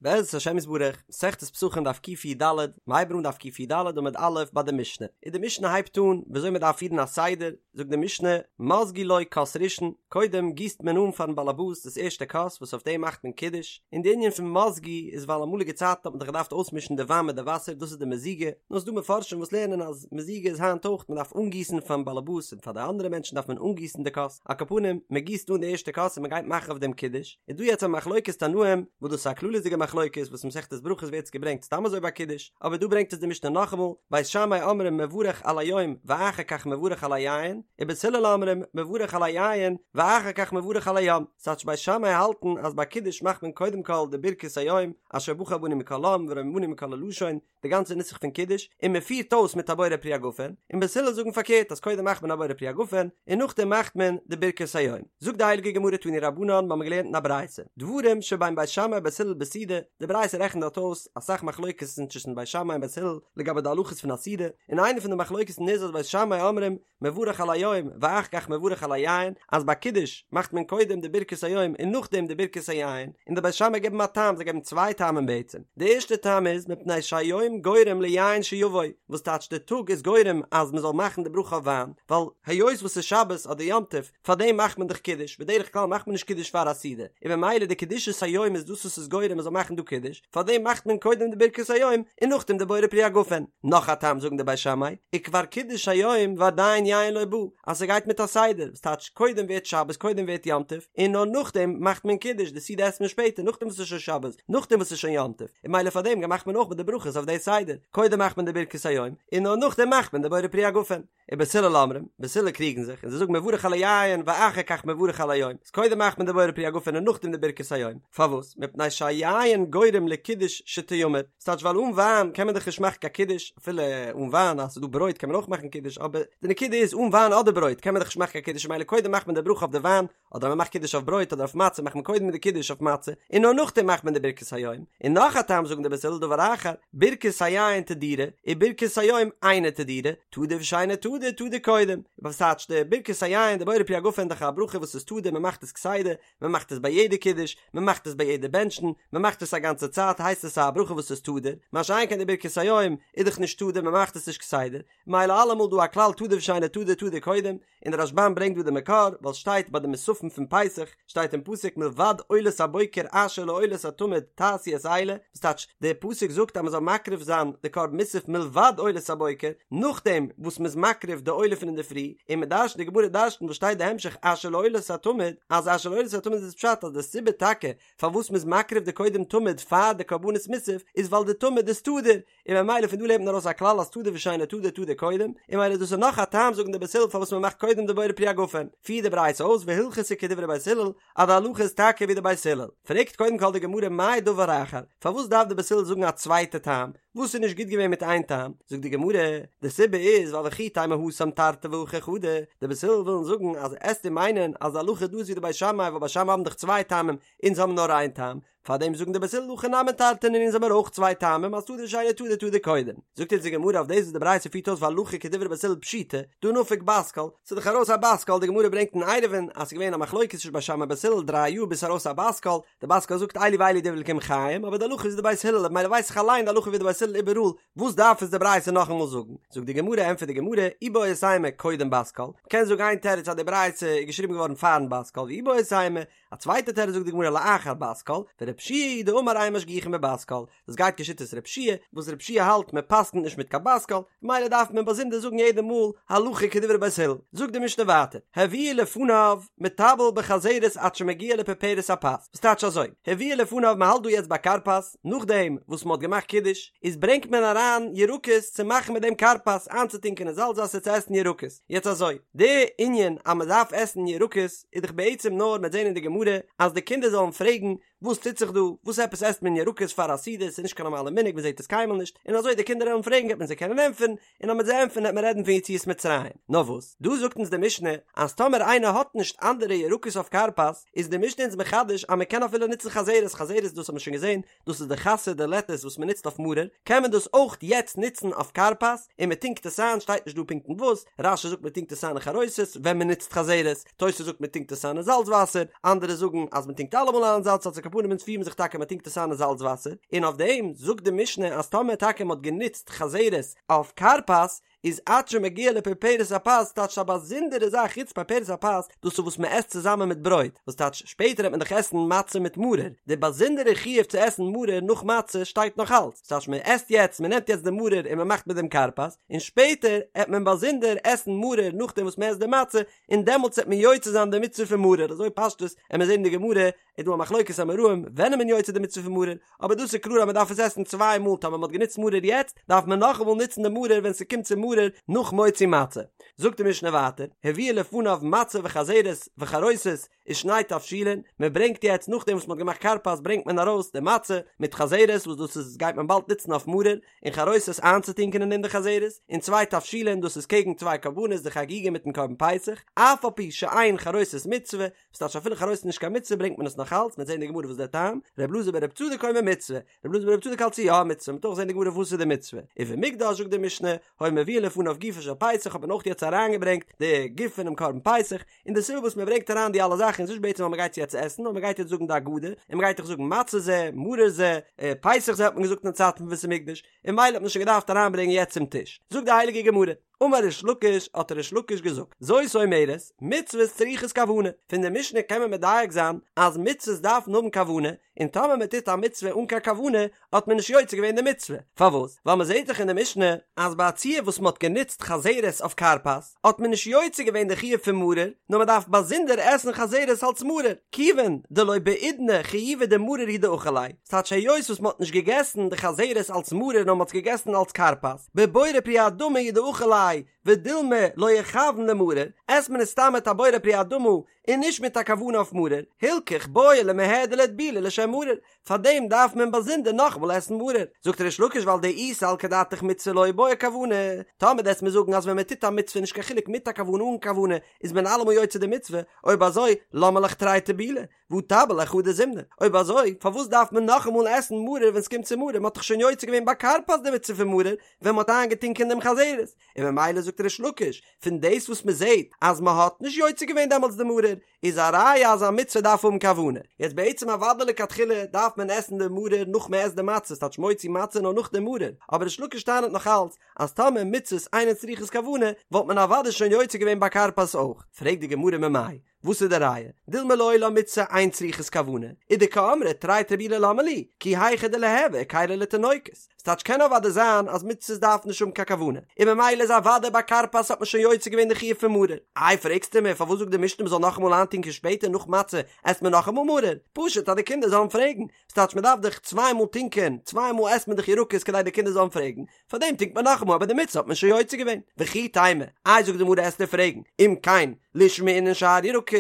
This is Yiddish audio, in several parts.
בעזרת השם יתברך, מסכת פסחים דף קי"ד, מ'הייבט אן דף קי"ד עמוד א' ביי די משנה, און די משנה הייבט אן וויאזוי מען דארף פירן א סדר, זאגט די משנה, מזגו לו כוס ראשון, קודם גיסט מען אן פארן באלעבאס דאס ערשטע כוס וואס אויף דעם מאכט מען קידוש, און די ענין פון מזגו איז ווייל אמאליגע צייטן האט מען דאך געדארפט אויסמישן די וויין מיט די וואסער דאס איז די מזיגה, נאר ס'דא מפרשים וואס לערנען אז מזיגה איז היינט אויך, מען דארף אנגיסן פארן באלעבאס און פאר די אנדערע מענטשן דארף מען אנגיסן די כוס, על כל פנים, מען גיסט אן די ערשטע כוס און מען גייט מאכן אויף דעם קידוש. איז דא יעצט א מחלוקת תנאים, וואס דאס איז א כללית'דיגע מחלוקת וואס אין מסכת ברכות ווערט עס געברענגט סתם אזוי ביי קידוש, אבער דא ברענגט עס די משנה נאכאמאל, בית שמאי אומרים מברך על היום ואחר כך מברך על היין, ובית הלל אומרים מברך על היין ואחר כך מברך על היום, ס'טייטש בית שמאי האלטן אז ביי קידוש מאכט מען קודם כל די ברכת היום, אשר בחר בנו מכל עם ורוממנו מכל הלשון, די גאנצע נוסח פון קידוש, און מען פירט אויס מיט א בורא פרי הגפן, און בית הלל זאגן פארקערט אז קודם מאכט מען א בורא פרי הגפן, און נאכדעם מאכט מען די ברכת היום. זאגט די הייליגע גמרא תנו רבנן, מ'האמיר געלערנט אין א ברייתא, דברים שבין בית שמאי ובית הלל בסעודה, די ברייתא רעכנט דארט אויס אסאך מחלוקת'ן צווישן בית שמאי און בית הלל לגבי די הלכות פון א סעודה, און איינע פון די מחלוקת'ן איז אז בית שמאי אומרים מברך על היום ואחר כך מברך על היין, אז ביי קידוש מאכט מען קודם די ברכת היום און נאכדעם די ברכת היין, און די בית שמאי געבן א טעם, זיי געבן צוויי טעמים בעצם, די ערשטע טעם איז מפני שהיום גורם ליין שיבוא, וואס טייטש די טאג איז גורם אז מען זאל מאכן די ברכה אויף וויין, ווייל היות וואס ס'איז שבת אדער יום טוב, פארדעם מאכט מען דאך קידוש, בדרך כלל מאכט מען נישט קידוש פאר א סעודה, און ממילא די קדושת היום איז דאס וואס איז גורם מען זאל מאכן דא קידוש, פארדעם מאכט מען קודם די ברכת היום און נאכדעם די בורא פרי הגפן. נאך א טעם זאגן די בית שמאי, וכבר קידוש היום ועדיין יין לא בא, אז ס'גייט מיט א סדר, וואס טייטש קודם ווערט שבת קודם ווערט יום טוב, און נאר נאכדעם מאכט מען קידוש, די סעודה עסט מען שפעטער נאכדעם וואס ס'איז שוין שבת, נאכדעם וואס ס'איז שוין יום טוב, און ממילא פארדעם מאכט מען אויך מיט די ברכות אויף די סדר, קודם מאכט מען די ברכת היום, און נאר נאכדעם מאכט מען די בורא פרי הגפן. ובית הלל אומרים, בית הלל קריגן זיך, און זיי זאגן מברך על היין ואחר כך מברך על היום, איז קודם מאכט מען די בורא פרי הגפן און נאכדעם די ברכת היום, פארוואס? מפני שהיין גורם לקידוש שתיאמר, ס'טייטש ווייל אן וויין קען מען דאך נישט מאכן קיין קידוש, אפילו אן וויין אז ס'איז דא ברויט קען מען אויך מאכן קידוש, אבער די נקודה איז אן וויין אדער ברויט קען מען דאך נישט מאכן קיין קידוש ממילא קודם מאכט מען די ברכה אויף די וויין, אדער מען מאכט קידוש אויף ברויט אדער אויף מצה מאכט מען קודם די קידוש אויף מצה און נאר נאכדעם מאכט מען די ברכת היום, און נאך א טעם זאגן די בית הלל דבר אחר, ברכת היין תדירה וברכת היום אינה תדירה, תדיר ושאינו תדיר תדיר קודם, וואס טייטש די ברכת היין די בורא פרי הגפן איז דאך א ברכה וואס איז תדיר מען מאכט עס כסדר, מען מאכט עס ביי יעדע קידוש, מען מאכט עס ביי יעדע בענטשן, מען מאכט עס א גאנצע צייט הייסט עס א ברכה וואס איז תדיר, מה שאין כן די ברכת היום איז דאך נישט תדיר מען מאכט עס נישט כסדר, מילא אלעמאל דא א כלל תדיר ושאינו תדיר תדיר קודם, און דער רשב"ם ברענגט דא די מקור, ווייל שטייט ביי די מוספים פון פסח, שטייט אין פסוק מלבד עולת הבוקר אשר לעולת התמיד תעשו את אלה, וואס טייטש, דער פסוק זאגט אז מען זאל מקריב זיין די קרבן מוסף מלבד עולת הבוקר, נאכדעם וואס מען איז מקריב די עולה פון אינדערפרי, און מען דרש'נט די גמרא דרש'נט וואס שטייט די המשך אשר לעולת התמיד, אז אשר לעולת התמיד איז פשט אז די סיבה טאקע פארוואס מען איז מקריב די קודם תמיד פאר די קרבנות מוסף איז ווייל די תמיד איז תדיר, און ממילא פון דא לערנט מען ארויס א כלל אז תדיר ושאינו תדיר תדיר קודם, און ממילא דאס איז נאך א טעם זאגן די בית הלל פארוואס מען מאכט קודם די בורא פרי הגפן, פירט די ברייתא אויס והלכתא כדברי בית הלל אז די הלכה איז טאקע ווי די בית הלל, פרעגט קודם כל די גמרא מאי דבר אחר, פארוואס דארף די בית הלל זאגן א צווייטע טעם, וואס איז נישט גוט געווען מיט איין טעם, זאגט די גמרא, די סיבה איז ווייל וכי תימא התם תרתי והכא חדא, די בית הלל ווילן זאגן אז עסטו מיינען אז די הלכה דא איז ווי די בית שמאי ווייל בית שמאי האבן דאך צוויי טעמים, אונז האבן נאר איין טעם, פאר דעם זאגן די בית הלל הכא נמי תרתי אונז האבן מיר אויך צוויי טעמים אז תדיר ושאינו תדיר תדיר קודם. זאגט אונז די גמרא אויף דאס וואס די ברייתא פירט אויס והלכה כדברי בית הלל פשיטא, דהא נפק בת קול, ס'איז דאך ארויס א בת קול, די גמרא ברענגט אין עירובין אז ס'איז געווען א מחלוקת צווישן בית שמאי בית הלל דריי יאר ביז ס'איז ארויס א בת קול, די בת קול זאגט אלו ואלו דברי אלקים חיים אבער די הלכה איז ווי די בית הלל ממילא ווייס איך אליין די הלכה ווי די בית הלל איבעראל, וואס דארף עס די ברייתא נאכאמאל זאגן? זאגט די גמרא ענטפערט די גמרא איבעית אימא קודם בת קול, מ'קען זאגן איין תירוץ אז די ברייתא איז געשריבן געווארן פארן בת קול ואיבעית אימא א צווייטע תירוץ זאגט די גמרא לאחר בת קול, ורבי יהושע היא דאמר אין משגיחין בבת קול, דאס גייט כשיטת רבי יהושע, וואס רבי יהושע האלט מען פסק'נט נישט מיט קיין בת קול, ממילא דארף מען באזונדער זאגן יעדע מאל הלכה כדברי בית הלל. זאגט די משנה ווייטער, הביאו לפניו מטבל בחזרת עד שמגיע לפרפרת הפת, וואס טייטש אזוי, הביאו לפניו מען האלט דא יעצט ביי כרפס, נאכדעם וואס מען האט געמאכט קידוש, איז ברענגט מען אריין ירקות צו מאכן מיט דעם כרפס, איינצוטונקען אין זאלץ וואסער צו עסן ירקות, יעצט אזוי, די ענין אז מען דארף עסן ירקות איז דאך בעצם נאר מ'עט זען אין די גמרא אז די קינדער זאלן פרעגן וואס טוט זיך דא, וואס עפעס עסט מען ירקות פאר א סעודה, ס'איז נישט קיין נארמאלע מנהג מען זעט עס קיינמאל נישט, און אזוי די קינדער וועלן פרעגן וועט מען זיי קענען ענטפערן, און אז מ'עט זיי ענטפערן וועט מען רעדן פון יציאת מצרים. נאר וואס, דא זאגט אונז די משנה אז טאמער איינער האט נישט אנדערע ירקות אויף כרפס, איז די משנה אונז מחדש אז מען קען אפילו נוצן חזרת, חזרת דאס האט מען שוין געזען, דאס איז די חסה די לעטעס וואס מען נוצט אויף מרור, קען מען דאס אויך יעצט נוצן אויף כרפס, און מען טונקט עס איין, שטייט נישט דא פונקט אין וואס, רש"י זאגט מען טונקט עס איין אין חרוסת ווען מען נוצט חזרת, תוס' זאגט מען טונקט עס איין אין זאלץ וואסער, אנדערע זאגן אז מען טונקט אלעמאל איין אין זאלץ וואסער. על כל פנים אונז פירן זיך טאקע מען טונקט עס איין אין זאלץ וואסער, און אויף דעם זאגט די משנה אז טאמער טאקע מען האט גענוצט חזרת אויף כרפס איז עד שמגיע לפרפרת הפת טייטש א באזונדערע זאך חוץ פרפרת הפת דאס איז וואס מען עסט צוזאמען מיט ברויט וואס טייטש שפעטער וועט מען דאך עסן מצה מיט מרור די באזונדערע חיוב צו עסן מרור נאך מצה שטייט נאך אלץ ס'טייטש מען עסט יעצט מען נעמט יעצט די מרור און מען מאכט מיט דעם כרפס און שפעטער עט מען באזונדער עסן מרור נאכדעם וואס מען עסט די מצה און דעמאלטס וועט מען יוצא זיין די מצוה פון מרור, אזוי פשטות עמיר זעהן אין די גמרא איז דא א מחלוקת אמוראים ווען איז מען יוצא די מצוה פון מרור, אבער דאס איז קלאר אז מען דארף עס עסן צוויי מאל טאמער מען האט גענוצט מרור יעצט דארף מען נאכאמאל נוצן די מרור ווען ס'קומט צו מרור נאך מוציא מצה. זאגט די משנה ווייטער, הביאו לפניו מצה וחזרת וחרוסת ושני תבשילין, מען ברענגט יעצט נאכדעם וואס מען האט געמאכט כרפס ברענגט מען ארויס די מצה מיט חזרת וואס דאס איז גייט מען באלד נוצן אויף מרור, און חרוסת איינצוטונקען אין דעם די חזרת, און צוויי תבשילין דאס איז קעגן צוויי קרבנות די חגיגה מיטן קרבן פסח, אף על פי שאין חרוסת מצוה, וואס טייטש אפילו חרוסת איז נישט קיין מצוה ברענגט מען עס נאך אלץ, מ'וועט זען אין די גמרא וואס דער טעם, ר' אלעזר בר' צדוק אומר מצוה, ר' אלעזר בר' צדוק האלט ס'איז יא א מצוה, מ'וועט אויך זען אין די גמרא וואס איז די מצוה, ובמקדש זאגט די משנה, היו מביאין לפניו גופו של פסח האט מען אויך יעצט אריינגעברענגט די גוף פונעם קרבן פסח, און די סיבה וואס מען ברענגט אריין די אלע זאכן איז נישט בעצם ווייל מען גייט עס יעצט עסן, נאר מען גייט יעצט זאגן די הגדה, און מען גייט דאך זאגן מצה זה, מרור זה, פסח זה האט מען געזאגט אין די צייטן פון בית המקדש, און ממילא האט מען שוין געדארפט אריינברענגען יעצט צום טיש. זאגט די הייליגע גמרא, אמר ריש לקיש, האט ריש לקיש געזאגט, זאת אומרת, מצוות צריכות כוונה, פון די משנה קען מען מדייק זיין אז מצוות דארפן האבן כוונה, און טאמער מען טוט א מצוה אן קיין כוונה האט מען נישט יוצא געווען די מצוה, פארוואס? ווייל מען זעט דאך אין די משנה אז ביי א ציור וואס מען האט גענוצט חזרת אויף כרפס האט מען נישט יוצא געווען די חיוב פון מרור, נאר מען דארף באזונדער עסן חזרת אלס מרור, כיוון דלא בעידנא חיובא דמרור הוא דאכיל ליה, ס'טייטש היות וואס מען האט נישט געגעסן די חזרת אלס מרור נאר מען האט עס געגעסן אלס כרפס, בבורא פרי האדמה הוא דאכיל ליה, ודילמא לא איכוון למרור, עסט מען עס סתם מיט א בורא פרי האדמה און נישט מיט א כוונה אויף מרור, הילכך בעי למיהדר לאיטבולי לשם מרור, פארדעם דארף מען באזונדער נאכאמאל עסן מרור. זאגט ריש לקיש ווייל דאי סלקא דעתך מצוה לא בעי כוונה, טאמער דו וועסט מיר זאגן אז ווען מען טוט א מצוה נישט קיין חילוק מיט א כוונה אן כוונה איז מען אלעמאל יוצא די מצוה, אויב אזוי למה לך תרי טיבולי והא טביל ליה חדא זימנא, אויב אזוי פארוואס דארף מען נאכאמאל עסן מרור ווען ס'קומט צו מרור, מ'האט דאך שוין יוצא געווען ביי כרפס די מצוה פון מרור ווען מ'האט איינגעטונקען דעם חזרת, און ממילא זאגט ריש לקיש, פון דאס וואס מען זעט אז מען האט נישט יוצא געווען דעמאלטס די מרור, איז א ראיה אז א מצוה דארף האבן כוונה. יעצט בעצם אוודאי לכתחילה דארף מען עסן די מרור נאך מען עסט די מצה, ס'טייטש מוציא מצה נאר נאך די מרור, אבער ריש לקיש טענה'ט נאך אלץ אז טאמער מצוות אינן צריכות כוונה וואלט מען אוודאי שוין יוצא געווען ביי כרפס אויך. פרעגט די גמרא ממאי? וואס איז די ראיה? דילמא לעולם מצוה אין צריכות כוונה, ודקאמרת תרי טיבולי למה לי, כי היכי דליהוו היכירא לתינוקות. ס'טייטש קען אוודאי זיין אז מצוות דארפן נישט האבן קיין כוונה, און ממילא איז אוודאי ביי כרפס האט מען שוין יוצא געווען די חיוב פון מרור. איי פרעגסטו מיר פארוואס זאגט די משנה מ'זאל נאכאמאל איינטונקען שפעטער נאך מצה עסט מען נאכאמאל מרור? פשוט אז די קינדער זאלן פרעגן. ס'טייטש מ'דארף דאך צוויי מאל טונקען, צוויי מאל עסט מען דאך ירקות כדי די קינדער זאלן פרעגן, פארדעם טונקט מען נאכאמאל אבער די מצוה האט מען שוין יוצא געווען. וכי תימא, איי זאגט די גמרא עסטו פרעגן, אם כן לישמעינן שאר ירקות,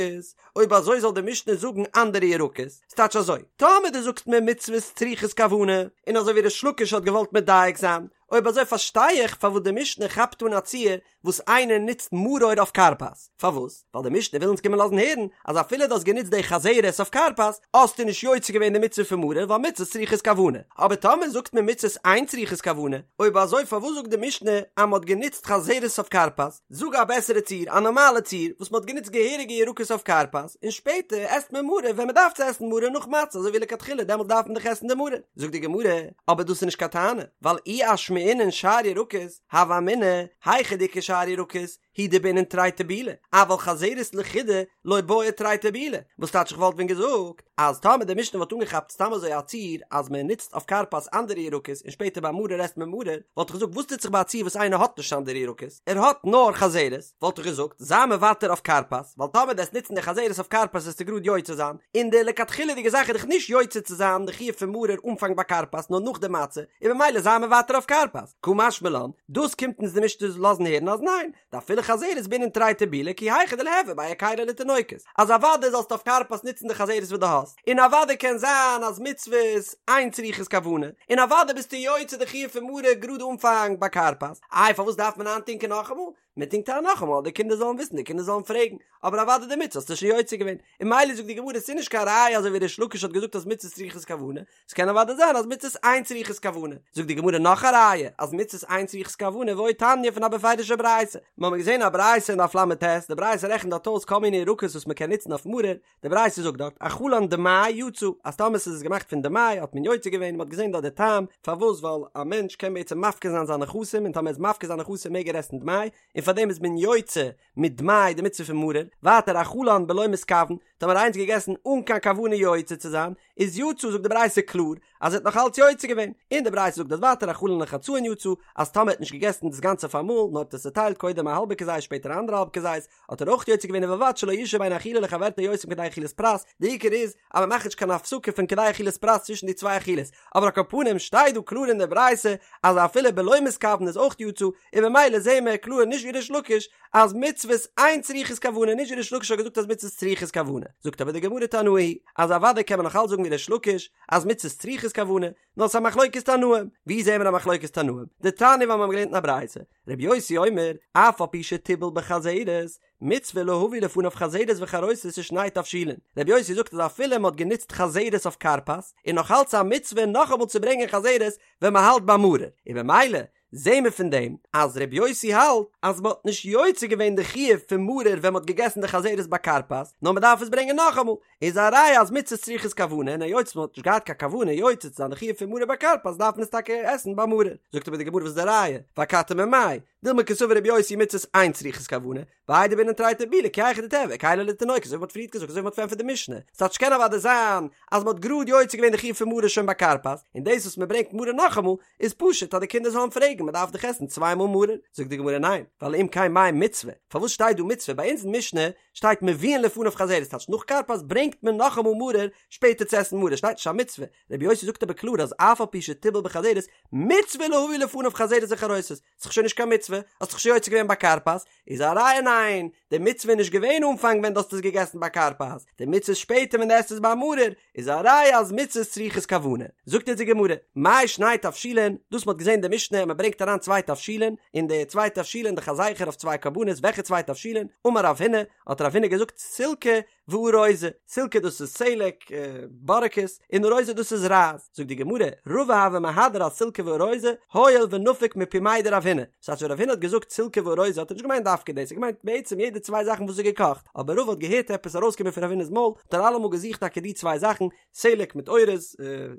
אויב אזוי זאל די משנה זאגן אנדערע ירקות, ס'טייטש אזוי, טאמער דו זאגסט מיר מצוות צריכות כוונה, און אזוי ווי ריש לקיש האט געוואלט מדייק זיין, אויב אזוי פארשטיי איך פארוואס די משנה כאפט אן א ציור וואס איינער נוצט מרור אויף כרפס, פארוואס? ווייל די משנה וויל אונז קומען לאזן הערן אז אפילו דו האסט גענוצט די חזרת אויף כרפס, האסטו נישט יוצא געווען די מצוה פון מרור ווייל מצוות צריכות כוונה. אבער טאמער זאגט מען מצוות אין צריכות כוונה, אויב אזוי פארוואס זאגט די משנה אז מען האט גענוצט חזרת אויף כרפס? זאג א בעסערע ציור, א נארמאלע ציור, וואס מען האט גענוצט געהעריגע ירקות אויף כרפס, און שפעטער עסט מען מרור ווען מען דארף צו עסן מרור נאך מצה אזוי ווי לכתחילה דעמאלט דארף מען דאך עסן די מרור. זאגט די גמרא, אבער דאס איז נישט קיין טענה, ווייל אי אשמעינן שאר ירקות, הוה אמינא, היכא דאיכא שאר ירקות, הוא דבעינן תרי טיבולי, אבל חזרת לחודה לא בעי תרי טיבולי, וואס טייטש איך וואלט ווען געזאגט אז טאמער די משנה וואלט אנגעכאפט סתם אזוי א ציור אז מען נוצט אויף כרפס אנדערע ירקות און שפעטער ביי מרור עסט מען מרור, וואלט איך געזאגט וואס טוט זיך ביי א ציור וואס איינער האט נישט אנדערע ירקות, ער האט נאר חזרת, וואלט איך געזאגט זיי מוותר אויף כרפס, ווייל טאמער דו עסט נוצן די חזרת אויף כרפס וועסטו גראד יוצא זיין, און די לכתחילה'דיגע זאך איז דאך נישט יוצא צו זיין די חיוב פון מרור אנפאנג ביי כרפס נאר נאך די מצה, און ממילא זיי מוותר אויף כרפס. קא משמע לן, דאס קומט אונז די משנה לאזן הערן אז ניין, דאפילו חזרת בעינן תרי טיבולי כי היכי דליהוו ביה היכירא לתינוקות, אז אוודאי זאלסטו אויף כרפס נוצן די חזרת וואס דו האסט, און אוודאי קען זיין אז מצוות אין צריכות כוונה, און אוודאי ביסטו יוצא די חיוב פון מרור גראד אנפאנג ביי כרפס, איי פארוואס דארף מען איינטונקען נאכאמאל? מען טונקט איין נאכאמאל אז די קינדער זאלן וויסן, די קינדער זאלן פרעגן, אבער אוודאי די מצוה האסטו שוין יוצא געווען, און ממילא זאגט די גמרא ס'איז נישט קיין ראיה אזוי ווי ריש לקיש האט געזאגט אז מצות צריכות כוונה, ס'קען אוודאי זיין אז מצות אין צריכות כוונה, זאגט די גמרא נאך א ראיה אז מצות אין צריכות כוונה ועוד תניא פון א בפירוש'ע ברייתא, מ'האמיר געזען א ברייתא אין דף ל"ט, די ברייתא רעכנט דארט אויס כל מיני ירקות וואס מ'קען נוצן אויף מרור, די ברייתא זאגט דארט, אכלן דמאי יצא, אז טאמער ס'איז געמאכט פון דמאי האט מען יוצא געווען, מ'האט געזען דארט די טעם פארוואס ווייל א מענטש קען בעצם מפקיר זיין זיינע נכסים און טאמער ער איז מפקיר זיינע נכסים מעג ער עסן דמאי, און פארדעם איז מען יוצא מיט דמאי די מצוה פון מרור, ווייטער אכלן בלא מתכוון, טאמער איינער האט געגעסן אן קיין כוונה יוצא צו זיין, איז יצא זאגט די ברייתא קלאר אז ער האט נאך אלץ יוצא געווען, און די ברייתא זאגט דאס ווייטער אכלן לחצאין יצא, אז טאמער ער האט נישט געגעסן דאס גאנצע אויף אמאל, נאר האט עס צעטיילט קודם א האלבע כזית שפעטער א אנדערע האלב כזית, האט ער אויך יוצא געווען ובלבד שלא ישהא בין אכילה לחברתה יותר מכדי אכילת פרס, די עיקר איז אז מען מאכט נישט קיין הפסקה פון כדי אכילת פרס צווישן די צוויי אכילות, אבער על כל פנים שטייט דא קלאר אין די ברייתא אז אפילו בלא מתכוון איז אויך יצא, און ממילא זעהן מיר קלאר נישט ווי ריש לקיש אז מצוות אין צריכות כוונה, נישט ווי ריש לקיש האט געזאגט אז מצוות צריכות כוונה, זאגט אבער די גמרא תנאי היא אז אוודאי קען מען נאך אלץ זאגן ווי ריש לקיש אז מצוות צריכות כוונה, נאר ס'איז א מחלוקת תנאים, ווי זעהן מיר א מחלוקת תנאים? דתניא ווייל מיר האבן געלערנט אין א ברייתא, רבי יוסי אומר, אף על פי שטיבל בחזרת, מצוה להביא לפניו חזרת וחרוסת ושני תבשילין. רבי יוסי זאגט אז אפילו מ'האט גענוצט חזרת אויף כרפס, איז נאך אלץ א מצוה נאכאמאל צו ברענגען חזרת ווען מ'האלט ביי מרור, און במילא זעהן מיר פון דעם אז רבי יוסי האלט אז מ'האט נישט יוצא געווען די חיוב פון מרור ווען מ'האט געגעסן די חזרת ביי כרפס, נאר מ'דארף עס ברענגען נאכאמאל, איז א ראיה אז מצות צריכות כוונה און היות מען האט נישט געהאט קיין כוונה יוצא צו זיין די חיוב פון מרור ביי כרפס דארף מען עס טאקע עסן ביי מרור. זאגט אבער די גמרא וואס איז די ראיה? ואכתי ממאי? דילמא קסבר רבי יוסי מצות אין צריכות כוונה, ואיידי דבעינן תרי טיבולי כי היכי דתיהוי היכלא לתינוקות אזוי ווי מ'האט פריערט געזאגט אזוי ווי מ'האט פארענטפערט די משנה ס'טייטש קען אוודאי זיין אז מ'האט גראד יוצא געווען די חיוב פון מרור שוין ביי כרפס און דאס וואס מ'ברענגט מרור נאכאמאל איז פשוט אז די קינדער זאלן פרעגן מ'דארף דאך עסן צוויי מאל מרור זאגט די גמרא ניין ווייל אם כן מאי מצוה פארוואס שטייט דא מצוה ביי אונז אין משנה שטייט מביאין לפניו חזרת טייטש נאך כרפס ברענגט מען נאכאמאל מרור שפעטער צו עסן מרור שטייט נישט א מצוה רבי יוסי זאגט אבער קלאר אז אף על פי שטיבל בחזרת מצוה להביא לפניו חזרת וחרוסת ס'איז דאך שוין נישט קיין מצוה האסט דאך שוין יוצא געווען ביי כרפס איז א ראיה ניין די מצוה איז נישט געווען אנפאנג ווען דו האסט עס געגעסן ביי כרפס די מצוה איז שפעטער ווען דו עסט עס ביי מרור איז א ראיה אז מצות צריכות כוונה. זאגט אונז די גמרא, מאי שני תבשילין, דאס מ'האט געזען אין די משנה אז מ'ברענגט אריין צוויי תבשילין, און די צוויי תבשילין דאך א זכר אויף צוויי קרבנות, וועלכע צוויי תבשילין? אמר רב הונא, האט רב הונא געזאגט סילקא וארוזא, סילקא דאס איז סלק, בארעקעס, און ארוזא דאס איז רייז. זאגט די גמרא, רבא הוה מהדר אסילקא וארוזא, הואיל ונפיק מפומיה דרב הונא. ס'הייסט ווען רב הונא האט געזאגט סילקא וארוזא האט ער נישט געמיינט דווקא דאס, ער האט געמיינט בעצם יעדע צוויי זאכן וואס איז געקאכט, אבער רבא האט געהערט עפעס ארויסקומען פון רב הונא'ס מויל, האט ער אלעמאל געזוכט טאקע די צוויי זאכן, סלק מיט אורז,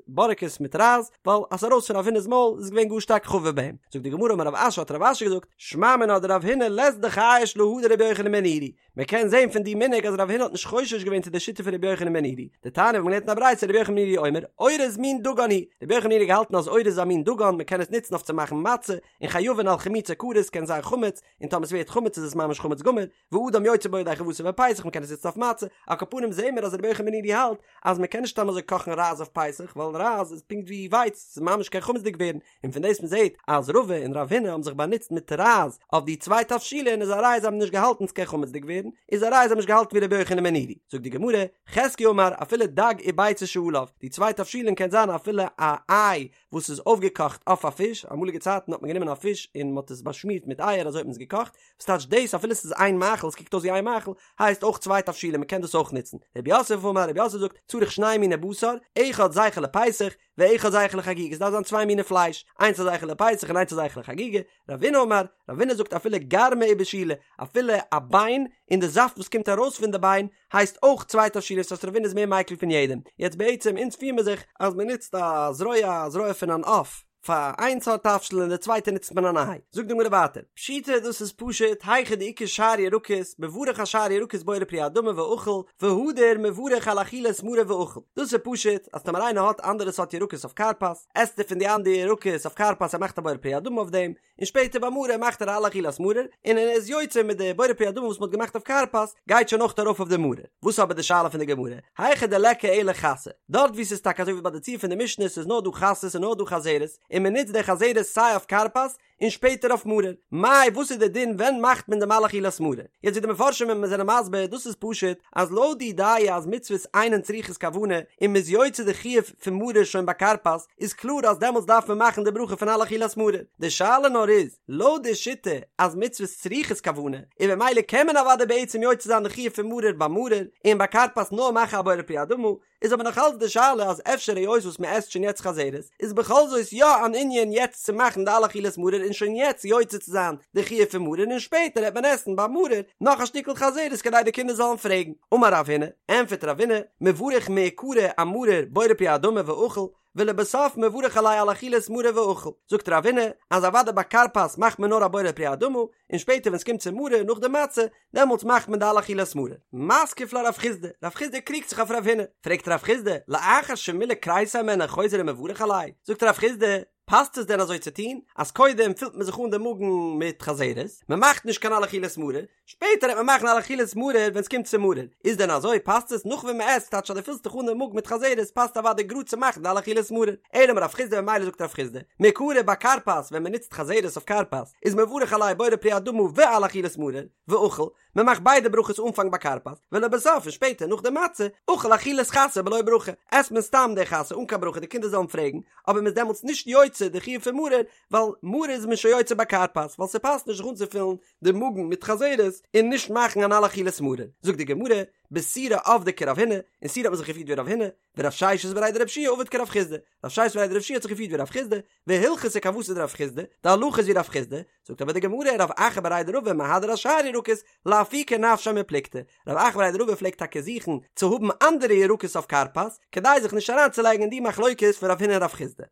בארעקעס מיט רייז, ווייל אז ס'איז ארויס פון רב הונא'ס מויל איז געווען גאר שטארק חביב ביי אים. זאגט די גמרא אמר רב אשי האט רב אשי געזאגט, שמע מינה דרב הונא לית דחייש להא דרבי יוחנן בן נורי, מען קען זען פון די מנהג אז רב הונא האט נישט חושש געווען צו די שיטה פון רבי יוחנן בן נורי, דתניא ווי מען לערנט אין א ברייתא רבי יוחנן בן נורי אומר, אורז מין דגן הוא, רבי יוחנן בן נורי האט געהאלטן אז אורז איז א מין דגן, מען קען עס נוצן אויף צו מאכן מצה, און חייבין על חימוצו כרת קען זיין חמץ, און טאמער עס ווערט חמץ איז עס ממש חמץ גמור, ואדם יוצא בו ידי חובתו בפסח מען קען עס נוצן אויף מצה, על כל פנים זעהן מיר אז רבי יוחנן בן נורי האלט אז מען קען נישט סתם אזוי קאכן רייז אויף פסח ווייל רייז איז פונקט ווי ווייץ ס'איז ממש קען חמצ'דיג ווערן, און פון דאס מען זעהט אז רבא און רב הונא האבן זיך באנוצט מיט רייז אויף די צוויי תבשילין איז א ראיה זיי האבן נישט געהאלטן ס'קען חמצ'דיג ווערן, איז א ראיה זיי האבן נישט געהאלטן ווי רבי יוחנן בן נורי. זאגט די גמרא, חזקיה אמר אפילו דג וביצה שעליו, די צוויי תבשילין קען זיין אפילו א איי וואס איז אויפגעקאכט אויף א פיש, אמאליגע צייטן האט מען גענומען א פיש און מען האט עס באשמירט מיט אייער אזוי האט מען עס געקאכט, וואס טייטש דאס אפילו עס איז איין מאכל עס קוקט אויס ווי איין מאכל, הייסט אויך צוויי תבשילין מען קען דאס אויך נוצן. רב יוסף אמר רב יוסף זאגט צריך שני מיני בשר, אחד זכר לפסח, ואחד זכר לחגיגה, עס דארף זיין צוויי מיני פלייש, איינס א זכר לפסח און איינס א זכר לחגיגה, רבינא אמר, רבינא זאגט אפילו גרמא ובישולא, אפילו א ביין און די זאפט וואס קומט ארויס פון די ביין הייסט אויך צוויי תבשילין, ס'הייסט רבינא איז מער מיקל פון יעדעם, יעצט בעצם אונז פיר מיר זיך אז מען נוצט א זרוע א זרוע פון אן עוף פאר איין סארט תבשיל און די צווייטע נוצט מען אן איי, זאגט די גמרא ווייטער, פשיטא דאס איז פשוט, היכא דאיכא שאר ירקות, מברך אשאר ירקות בורא פרי האדמה ואכיל, והדר מברך על אכילת מרור ואכיל, דאס איז פשוט אז טאמער איינער האט אנדערע סארט ירקות אויף כרפס, עסט ער פון די אנדערע ירקות אויף כרפס ער מאכט א בורא פרי האדמה אויף דעם, און שפעטער ביי מרור מאכט ער על אכילת מרור, און ער איז יוצא מיט די בורא פרי האדמה וואס מ'האט געמאכט אויף כרפס, גייט שוין אויך ארויף אויף די מרור. וואס איז אבער די שאלה פון די גמרא? היכא דליכא אלא חסה, דארט וואו ס'איז טאקע אזוי ווי ביי די ציור פון די משנה ס'איז נאר דא חסה ס'איז נאר דא חזרת, און און מען נוצט די חזרת סיי אויף כרפס און שפעטער אויף מרור. מאי וואס איז די דין ווען מאכט מען דעם על אכילת מרור? יעצט ווי די מפרשים זענען מסביר דאס איז פשוט אז לויט די דעה אז מצוות אינן צריכות כוונה און מ'איז יוצא די חיוב פון מרור שוין ביי כרפס איז קלאר אז דעמאלטס דארף מען מאכן די ברכה פון על אכילת מרור. די שאלה נאר איז לויט די שיטה אז מצוות צריכות כוונה און במילא קען מען אוודאי בעצם יוצא זיין די חיוב פון מרור ביי מרור און ביי כרפס נאר מאכן א בורא פרי האדמה איז אבער נאך אלץ די שאלה אז אפשר היות וואס מען עסט שוין יעצט חזרת איז בכל זאת יא אן ענין יעצט צו מאכן די על אכילת מרור און שוין יעצט יוצא צו זיין די חיוב פון מרור און שפעטער העט מען עסן ביי מרור נאך א שטיקל חזרת כדי די קינדער זאלן פרעגן. אמר רב הונא, ענפערט רב הונא, מברך מעיקרא אמרור בורא פרי האדמה ואכיל, ולבסוף מברך עליה על אכילת מרור ואכיל. זאגט רב הונא אז אוודאי ביי כרפס מאכט מען נאר א בורא פרי האדמה, און שפעטער ווען ס'קומט צו מרור נאך די מצה, דעמאלטס מאכט מען די על אכילת מרור. מתקיף לה רב חסדא, רב חסדא קריגט זיך אויף רב הונא, פרעגט רב חסדא, לאחר שמילא כריסיה הימנה חוזר ומברך עליה? זאגט רב חסדא, פאסט עס דען אזוי צו טון, אז קודם פילט מען זיך אן די מאגן מיט חזרת, מען מאכט נישט קיין על אכילת מרור, שפעטער העט מען מאכן על אכילת מרור ווען ס'קומט צו מרור, איז דען אזוי פאסט עס נאך ווען מ'עסט טייטש אז דו פילסט דיך אן די מאגן מיט חזרת פאסט אוודאי גראד צו מאכן די על אכילת מרור, אלא אמר רב חסדא ממילא זאגט רב חסדא, מעיקרא ביי כרפס ווען מ'נוצט חזרת אויף כרפס איז מברך עליה בורא פרי האדמה ועל אכילת מרור, ואכיל, מ'מאכט ביידע ברכות אנפאנג ביי כרפס, ולבסוף און שפעטער נאך די מצה, אכיל אכילת חסה בלא ברכה, עסט מען סתם די חסה אן קיין ברכה די קינדער זאלן פרעגן, אבער מ'איז דעמאלטס נישט יוצא די חיוב פון מרור, ווייל מרור איז מען שוין יוצא ביי כרפס, ווייל ס'פאסט נישט זיך אנצופילן די מאגן מיט חזרת און נישט מאכן אן על אכילת מרור. זאגט די גמרא, בסורא עבדי כרב הונא, אין סורא האט מען זיך געפירט ווי רב הונא, ורב ששת בריה דרב יהושע עביד כרב חסדא, רב ששת בריה דרב יהושע האט זיך געפירט ווי רב חסדא, והלכתא כוותיה דרב חסדא, די הלכה איז ווי רב חסדא, זאגט אבער די גמרא רב אחא בריה דרבא מהדר אשאר ירקות, לאפוקי נפשיה מפלוגתא, רב אחא בריה דרבא פלעגט טאקע זוכן צו האבן אנדערע ירקות אויף כרפס, כדי זיך נישט אריינצולייגן אין די מחלוקת פון רב הונא און רב חסדא.